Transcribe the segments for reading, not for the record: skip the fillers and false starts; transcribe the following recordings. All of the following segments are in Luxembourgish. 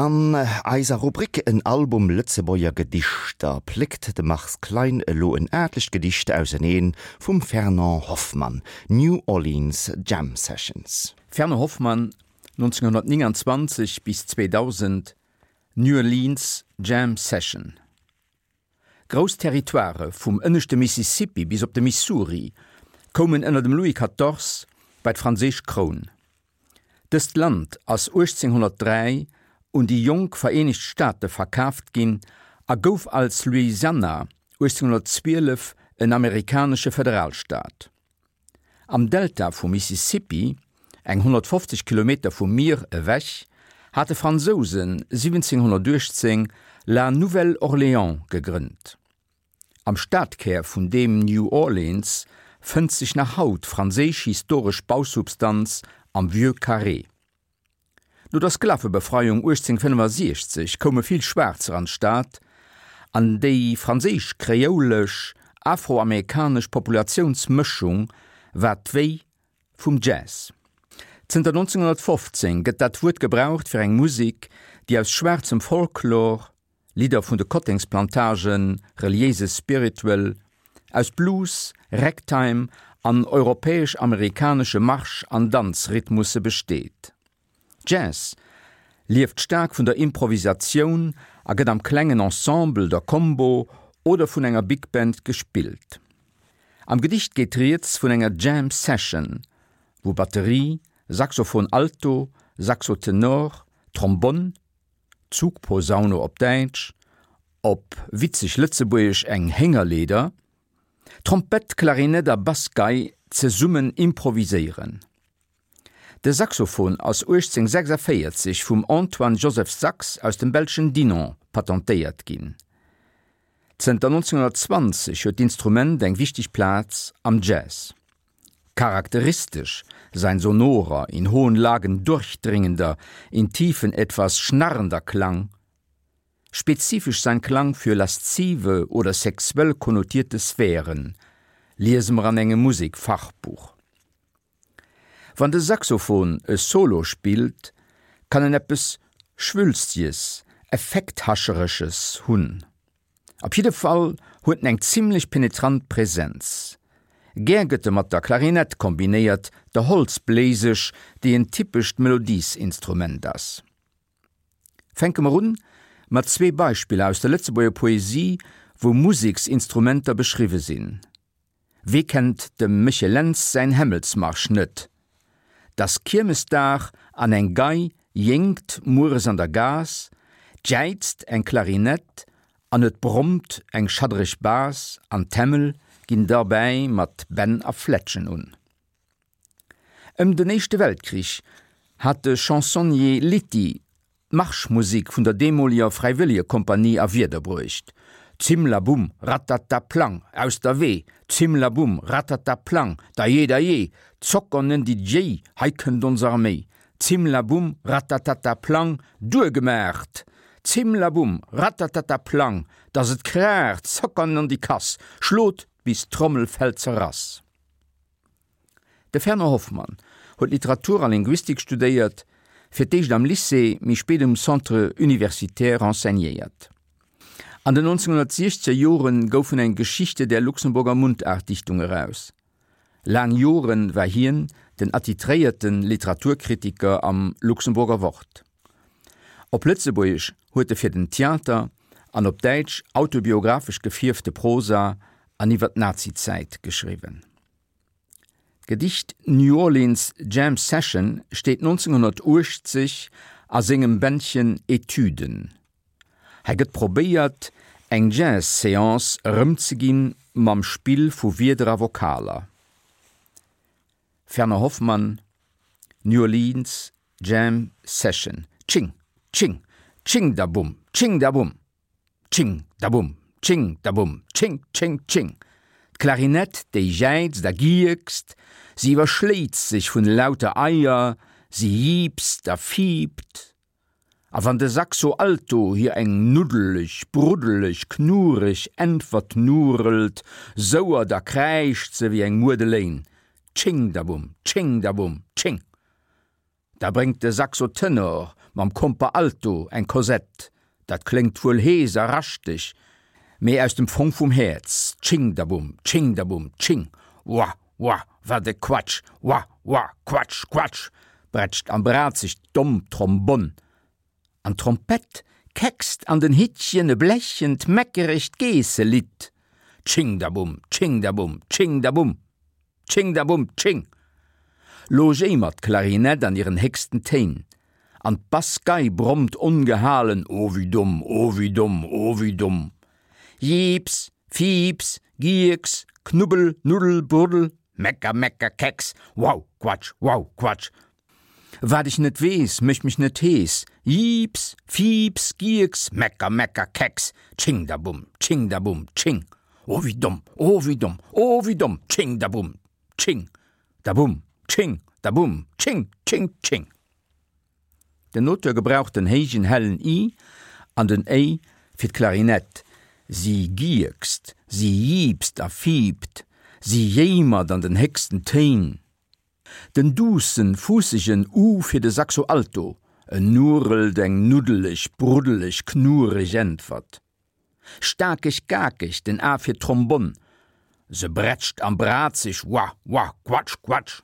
An eiser Rubrik En Album Lëtzebuerger Gedichter pléckt de Mars Klein elo en etlecht Gedichter auseneen vum Fernand Hoffmann, New Orleans Jam Sessions. Fernand Hoffmann, 1929 bis 2000, New Orleans Jam Session. Grouss Territoirë vum ënneschte Mississippi bis op de Missouri koumen ënner dem Louis Quatorze bei d'franséisch Kroun. Dëst Land ass 1803 un déi jonk Vereenegt Staate verkaaft ginn a gouf als Louisiana 1812 en amerikanesche Federalstaat. Am Delta vum Mississippi, eng 150 Kilometer vum Mier ewech, hate Fransousen 1718 La Nouvelle-Orléans gegrënnt. Am Stadkär vun deem New Orleans fënnt sech nach haut franséisch historesch Bausubstanz am Vieux Carré. No der Sklavebefreiung 1865 koume vill Schwaarzer an d'Stad, an déi franséisch-kreoulesch afroamerikanesch Populatiounsmëschung war d'Wéi vum Jazz. Zënter 1915 gëtt dat Wuert gebraucht fir eng Musek, déi aus schwaarzem Folklor, Lidder vun de Kottengsplantagen, reliéise Spiritual, aus Blues, Ragtime an europäesch-amerikanesche Marsch an Danzrhythmusse besteet. Jazz lieft staark vun der Improvisatioun a gëtt am klengen Ensemble, der Combo oder vun enger Big Band gespillt. Am Gedicht geet rieds vun enger Jam Session, wou Batterie, Saxophon alto, Saxo Tenor, Trombonn, Zugposaune op Däitsch, op witzeg Lëtzebuergesch eng Héngerleeder, Trompett, Klarinett a Bassgei zesummen improviséieren. De Saxophon ass 1846 vum Antoine Joseph Sax aus dem belschen Dinant patentéiert ginn. Zënter 1920 huet d'Instrument eng wichteg Plaz am Jazz. Charakteristisch sein sonorer, in hohen Lagen durchdringender, in Tiefen etwas schnarrender Klang. Spezifisch sein Klang für laszive oder sexuell konnotierte Sphären, liese mer an engem Musekfachbuch. Wann de Saxophon e Solo spillt, kann en eppes Schwülstiges, Effekthascheresches hunn. Op jidde Fall huet en eng zimmlech penetrant Präsenz. Gär gëtt e mat der Klarinett kombinéiert, der Holzbléisesch, déi en typescht Melodiesinstrument ass. Fänke mer un mat zwee Beispiller aus der Lëtzebuerger Poesie, wou Museksinstrumenter beschriwwe sinn. Wee kennt dem Méchel Lentz säin Hämmelsmarsch net? 't ass Kiermesdag an eng Gei jéngt mueres an der Gaass, 't jäizt eng Klarinett an et brommt eng schaddreg Bass an d'Hämmel ginn derbäi mat Bänn a Flätschen un. Ëm den Éischte Weltkrich hat de Chansonnier Litty d'Marschmusik vun der deemoliger Fräiwëllegekompanie a Wierder bruecht, Zimlabum, ratata plang, aus der Wee, Zimlabum, ratata plang, dajee, dajee, Zocker nen di djéi, hei kënnt ons Arméi, Zimlabum, ratatata plang, duergemaacht! Zimlabum, ratatata plang, dass et kraacht, Zocker nen di Kass, schlot bis d'Trommelfell zerrass. De Fernand Hoffmann huet Literatur a Linguistik studéiert, fir d'éischt am Lycée, méi spéit um Centre universitaire enseignéiert. An den 1960er Jore gouf en eng Geschichte der Luxemburger Mundartdichtung eraus. Laang Jore war hien den attitréierte Literaturkritiker am Luxemburger Wort. Op Lëtzebuergesch huet e fir den Theater an op Däitsch autobiographesch gefierfte Prosa an iwwer d'Nazizäit geschriwwen. D'Gedicht New Orleans Jam Session steet 1980 a sengem Bändchen Etüden. Hei gëtt probéiert, eng Jazz-Seance erëmzeginn mam Spill vu Wierder a Vokaler. Fernand Hoffmann, New Orleans Jam Session, Tsching! Tsching! Tsching da bum! Tsching da bum! Tsching, da bum, tsching, da bum, tsching, tsching, tsching. D'Klarinett, déi jäizt a giekst, si iwwerschléit sech vun lauter Eier, si jiipst a fiipt. A wann de Saxo alto hir eng nuddeleg, bruddeleg, knureg Äntwert nurelt, souert a kräischt se wéi eng Muedeléin, Tsching, da bum, tsching, da bum, tsching. Da bréngt de Saxo Tenor. mam Komper Alto eng Cosette, dat kléngt wuel hees a raschteg, mee aus dem Fong vum Häerz, tsching da bum, tsching da bum, tsching, wa, wa, wat e Quatsch, wa, wa, Quatsch, Quatsch, brätscht am brazeg domm Trombonn. An d'Trompett keckst an den Hittchen e blechent, meckeregt Geesselidd, Tsching da bum, tsching da bum, tsching da bum, tsching da bum, tsching! Lo jéimert d'Klarinett an hiren héchsten Téin, an d'Bassgei brommt ongehalen, O wéi domm, o wéi domm, o wéi domm! Jiips, Fiips, Gierks, Knubbel, Nuddel, Bruddel, Mecker, Mecker, Kecks, Wow, Quatsch, wow, Quatsch! Wat ech net weess, mécht mech net hees, Jiips, Fiips, Gierks, Mecker, Mecker, Kecks, Tsching da bum, tsching da bum, tsching! O wéi domm, o wéi domm, o wéi domm, tsching da bum, tsching da bum, tsching da bum, tsching, tsching, tsching! Den Auteur gebraucht den héijen hellen I an den Éi fir d'Klarinett, si gierkst, si jiipst a fiipt, si jéimert an den héchsten Téin. Den duussen, fuussegen U fir de Saxo alto, en nurelt eng nuddeleg, bruddeleg, knurreg Äntwert. Stakeg, gakeg, den A fir d'Trombonn, se brätscht am brazeg Wa, wa, quatsch, quatsch.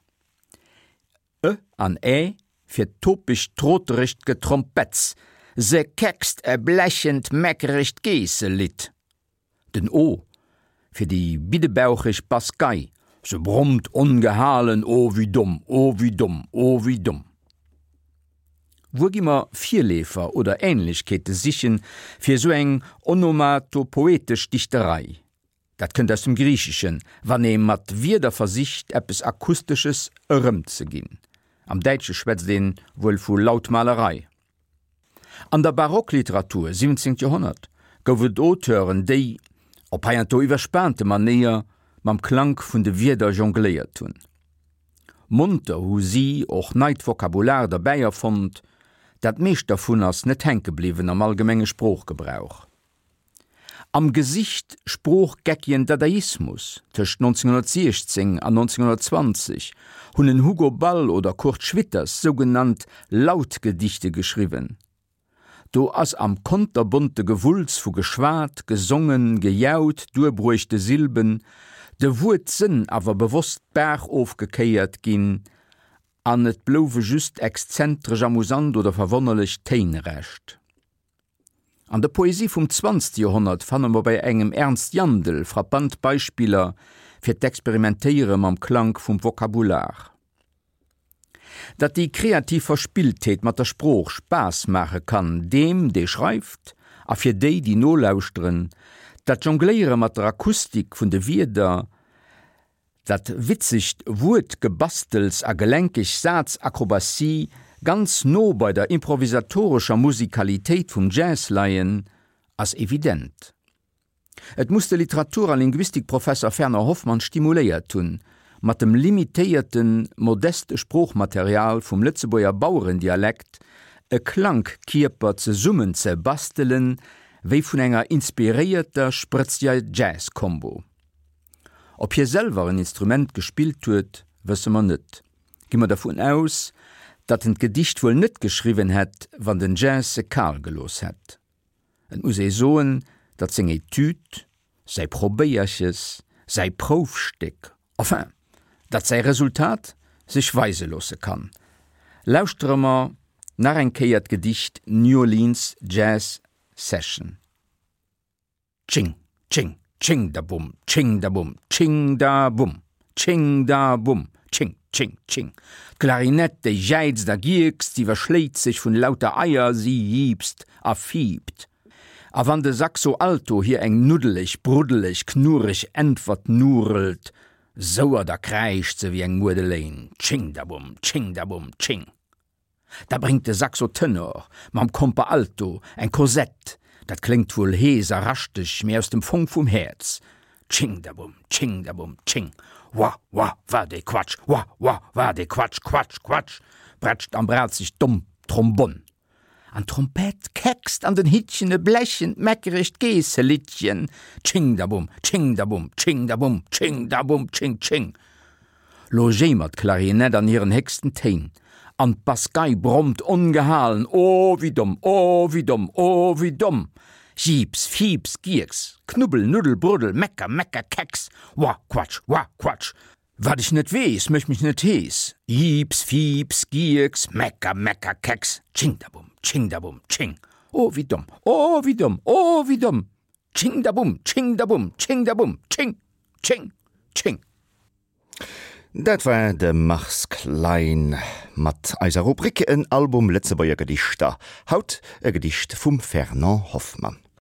Ë an Ä fir d'topegt, troteregt Getrompätz, se keckst e blechent, meckeregt Geesselidd. Den O fir déi biddebaucheg Bassgei, se brommt ongehalen, O wéi domm, o wéi domm, o wéi domm. Wuer gi mer Virleefer oder Ähnlechkeete sichen fir esou eng onomatopoetesch Dichterei? Dat kënnt aus dem Griicheschen, wann ee mat Wierder versicht, eppes Akustesches erëmzeginn. Am Däitsche schwätzt ee wuel vu Lautmalerei. An der Barockliteratur, 17. Joerhonnert, gouf et Auteuren, déi, op heiansdo iwwerspaante Manéier, mam Klank vun de Wierder jongléiert hunn. Monter hu si och neit Vokabular derbäi erfonnt, dat meescht dervun ass net hänke bliwwen am allgemenge Sproochgebrauch. Am Gesicht Sproochgeckien Dadaismus tëscht 1916 an 1920 hunn en Hugo Ball oder Kurt Schwitters sougenannt Lautgedichte geschriwwen. Do ass am konterbonte Gewulls vu geschwat, gesongen, gejaut duerbruechte Silben de Wuertsënn awer bewosst d'Baach ofgekéiert ginn an et blouwe just exzentresch amusant oder verwonnerlech Téin Rescht. An der Poesie vum zwanzte Joerhonnert fanne mer bei engem Ernst Jandl frappant Beispiller fir d'Experimentéiere mam Klank vum Vokabular. Datt déi kreativ Verspilltheet mat der Sprooch Spaass maache kann, deem, dee schreift, a fir déi, déi nolauschteren, dat Jongléiere mat der Akustik vun de Wierder, Dat witzegt Wuertgebastels a gelenkeg Sazakrobatie ganz no bei der improvisatorescher Musikalitéit vum Jazz leien, ass evident. Et muss de Literatur a Linguistikprofesser Fernand Hoffmann stimuléiert hunn, mat dem limitéierte modeste Sproochmaterial vum Lëtzebuerger Bauerendialekt e Klangkierper zesummen ze bastelen, wéi vun enger inspiréierter, sprëtzeger Jazz-Combo. Ob hie selwer en Instrument gespillt huet, wësse mer net. Gi mer dervun aus, datt en d'Gedicht wuel net geschriwwen hätt, wann den Jazz se kal gelooss hätt. Et muss ee soen, datt seng Etüd, säi Probéierches, säi Proufstéck, enfin, datt säi Resultat sech weise loosse kann. Lauschtere mer nach eng Kéier d'Gedicht New Orleans Jazz Session. Tsching, tsching, tsching da bum, tsching da bum, tsching da bum, tsching da bum, tsching, tsching, tsching. D'Klarinett, déi jäizt a gierkst, iwwerschléit sech vun lauter Eier, si jiipst a fiipt. A wann de Saxo alto hir eng nuddeleg, bruddeleg, knurreg Äntwert nurelt, souert a kräischt se wéi eng Muedeléin, Tsching da bum, tsching da bum, tsching. Da bréngt de Saxo Tenor mam Komper Alto eng Cosette, dat kléngt wuel hees a raschteg, mee aus dem Fong vum Häerz, Tsching da bum, tsching da bum, tsching, wa, wa, wat ee Quatsch, wa, wa, wat ee Quatsch, Quatsch, Quatsch, brätscht am brazeg domm Trombonn. An d'Trompett keckst an den Hittchen e blechent, meckeregt Geesseliddchen, Tsching da bum, tsching da bum, tsching da bum, tsching da bum, tsching, tsching. Lo jéimert d'Klarinett an hiren héchsten Téin. An d'Bassgei brommt ongehalen, O wéi domm, o wéi domm, o wéi domm! Jiips, Fiips, Gierks, Knubbel, Nuddel, Bruddel, Mecker, Mecker, Kecks, Wa Quatsch, wa Quatsch! Wat ech net weess, mécht mech net hees. Jiips, Fiips, Gierks, Mecker, Mecker, Kecks, Tschingdabum, tschingdabum, tsching! O wéi domm, o wéi domm, o wéi domm! Tschingdabum, tschingdabum, tschingdabum, tsching, tsching, tsching! Dat war de Mars Klein mat eiser Rubrik En Album Lëtzebuerger Gedichter. Haut e Gedicht vum Fernand Hoffmann.